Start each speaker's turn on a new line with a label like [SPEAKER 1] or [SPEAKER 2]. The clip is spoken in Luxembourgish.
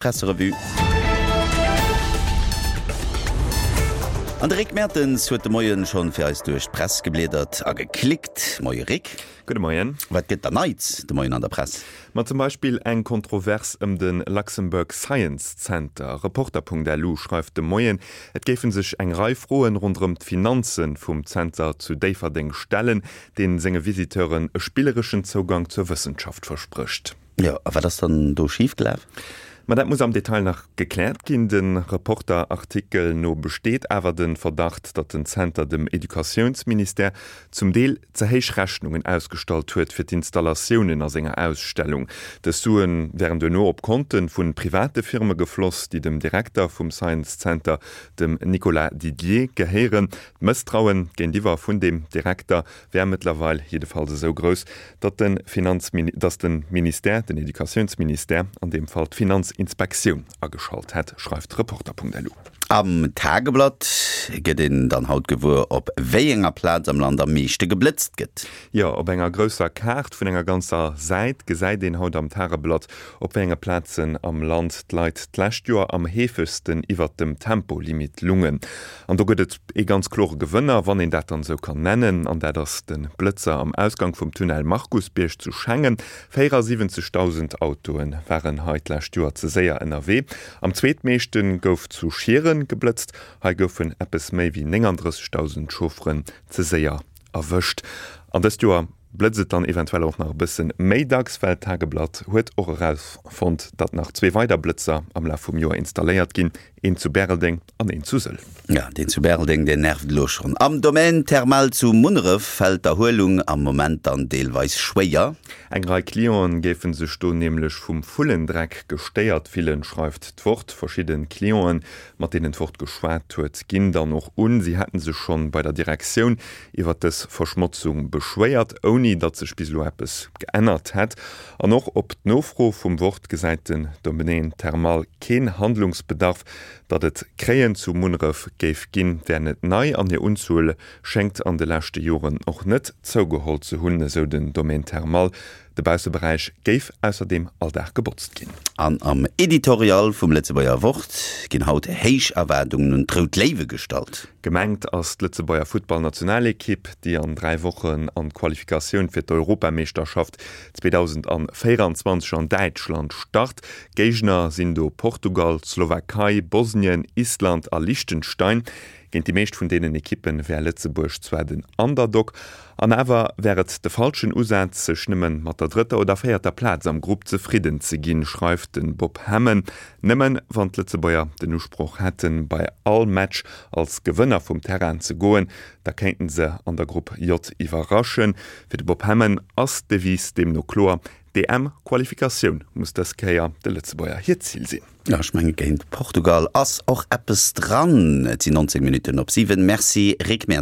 [SPEAKER 1] Presserevue. An de Rick Mertens huet de Moien schonn fir eis duerch d'Press gebliedert a geklickt. Moie Rick.
[SPEAKER 2] Gudde Moien.
[SPEAKER 1] Wat gëtt da Neits de Moien an der Press?
[SPEAKER 2] Ma zum Beispill eng Kontrovers ëm de Luxembourg Science Center. Reporter.lu schreift de Moien, et géife sech eng Rei Froen ronderëm d'Finanze vum Zenter zu Déifferdeng stellen, dee senge Visiteuren e spillereschen Zougang zur Wëssenschaft versprécht.
[SPEAKER 1] Jo, a wat ass dann do schif gelaf?
[SPEAKER 2] Ma dat muss am Detail nach gekläert ginn. Dem Reporter-Artikel no besteet awer de Verdacht, datt den Zenter dem Educatiounsministère zum Deel ze héich Rechnungen ausgestallt huet fir d'Installatiounen a senger Ausstellung. Dës Sue wären duerno op Konte vu private Firme gefloss, déi dem Direkter vum Science Center, dem Nicolas Didier, gehéieren. D'Mësstraue géintiwwer vun deem Direkter wär mëttlerweil jiddefalls esou grouss, datt de Finanzmini-, datt de Ministère, den Educatiounsministère an deem Fall, d'Finanzinspektioun ageschalt hätt, schreift Reporter.lu.
[SPEAKER 1] Am Tageblatt gëtt een dann haut gewuer, op wéi enger Plaz am Land am meeschte geblëtzt gëtt.
[SPEAKER 2] Jo, op enger grousser Kaart vun enger ganzer Säit gesäit een haut am Tageblatt, op wéi enge Plazen am Land d'Leit d'lescht Joer am heefegsten iwwert dem Tempolimit lungen. An do gëtt et ee ganz klore Gewënner, wann een dat dann esou kann nennen, an dat ass de Blëtzer am Ausgang vum Tunnel Markusbierg zu Schengen. 74.000 Autoe waren hei d'lescht Joer ze séier ënnerwee. Am zweetmeeschte gouf zu Schieren geblëtzt. Hei goufen eppes méi wéi 39.000 Chaufferen ze séier erwëscht. An dëst Joer blëtzt et dann eventuell och nach e bësse méi dacks, well d'Tageblatt huet och erausfonnt, datt nach zwee weider Blëtzer am Laf vum Joer installéiert ginn, een zu Bäreldeng an een zu Sëll.
[SPEAKER 1] Ja, deen zu Bäreldeng, deen nervt elo schonn. Am Domaine Thermal zu Munneref fält d'Erhuelung am Moment dann deelweis schwéier.
[SPEAKER 2] Eng Rei Clienten géife sech do nämlech vum Vullendreck gestéiert fillen, schreift d'Wort. Verschidde Clienten, mat deenen d'Wort geschwat huet, ginn dann och un, si hätte sech schonn bei der Direktioun iwwer dës Verschmotzung beschwéiert, ouni datt sech bis elo eppes geännert hätt. An och op d'Nofro vum Wort gesäit den Domaine Thermal keen Handlungsbedarf. Datt et Kréien zu Munneref géif ginn, wär net nei an hir Unzuel schéngt an de leschte Joren och net zougeholl ze hunn, esou den Domaine Thermal. De Bausseberäich géif ausserdeem all Dag gebotzt ginn.
[SPEAKER 1] An am Editorial vum Lëtzebuerger Wort ginn haut héich Erwaardungen un d'Rout Léiwe gestallt.
[SPEAKER 2] Gemengt ass d'Lëtzebuerger Futtballnationalekipp, déi an 3 Wochen an d'Qualifikatioun fir d'Europameeschterschaft 2024 an Däitschland start. Géigner sinn do Portugal, d'Slowakei, Bosnien, Island a Liechtenstein. Géint déi meescht vun deenen Ekippe wär Lëtzebuerg zwar den Underdog, an awer wär et de falschen Usaz, sech nëmme mat der drëtter oder véierter Plaz am Grupp zefridden ze ginn, schreift de Bob Hemmen. Nëmme wann d'Lëtzebuerger den Usproch hätten, bei all Match als Gewënner vum Terrain ze goen, da kéinten se an der Grupp J iwwerraschen. Fir de Bob Hemmen ass d'Devise deemno kloer, D'EM-Qualifikatioun muss dës Kéier de Lëtzebuerger hiert Zil sinn.
[SPEAKER 1] Jo, ech menge géint Portugal ass och eppes dran. Et sinn 19 Minutten op 7. Merci Rick Mertens.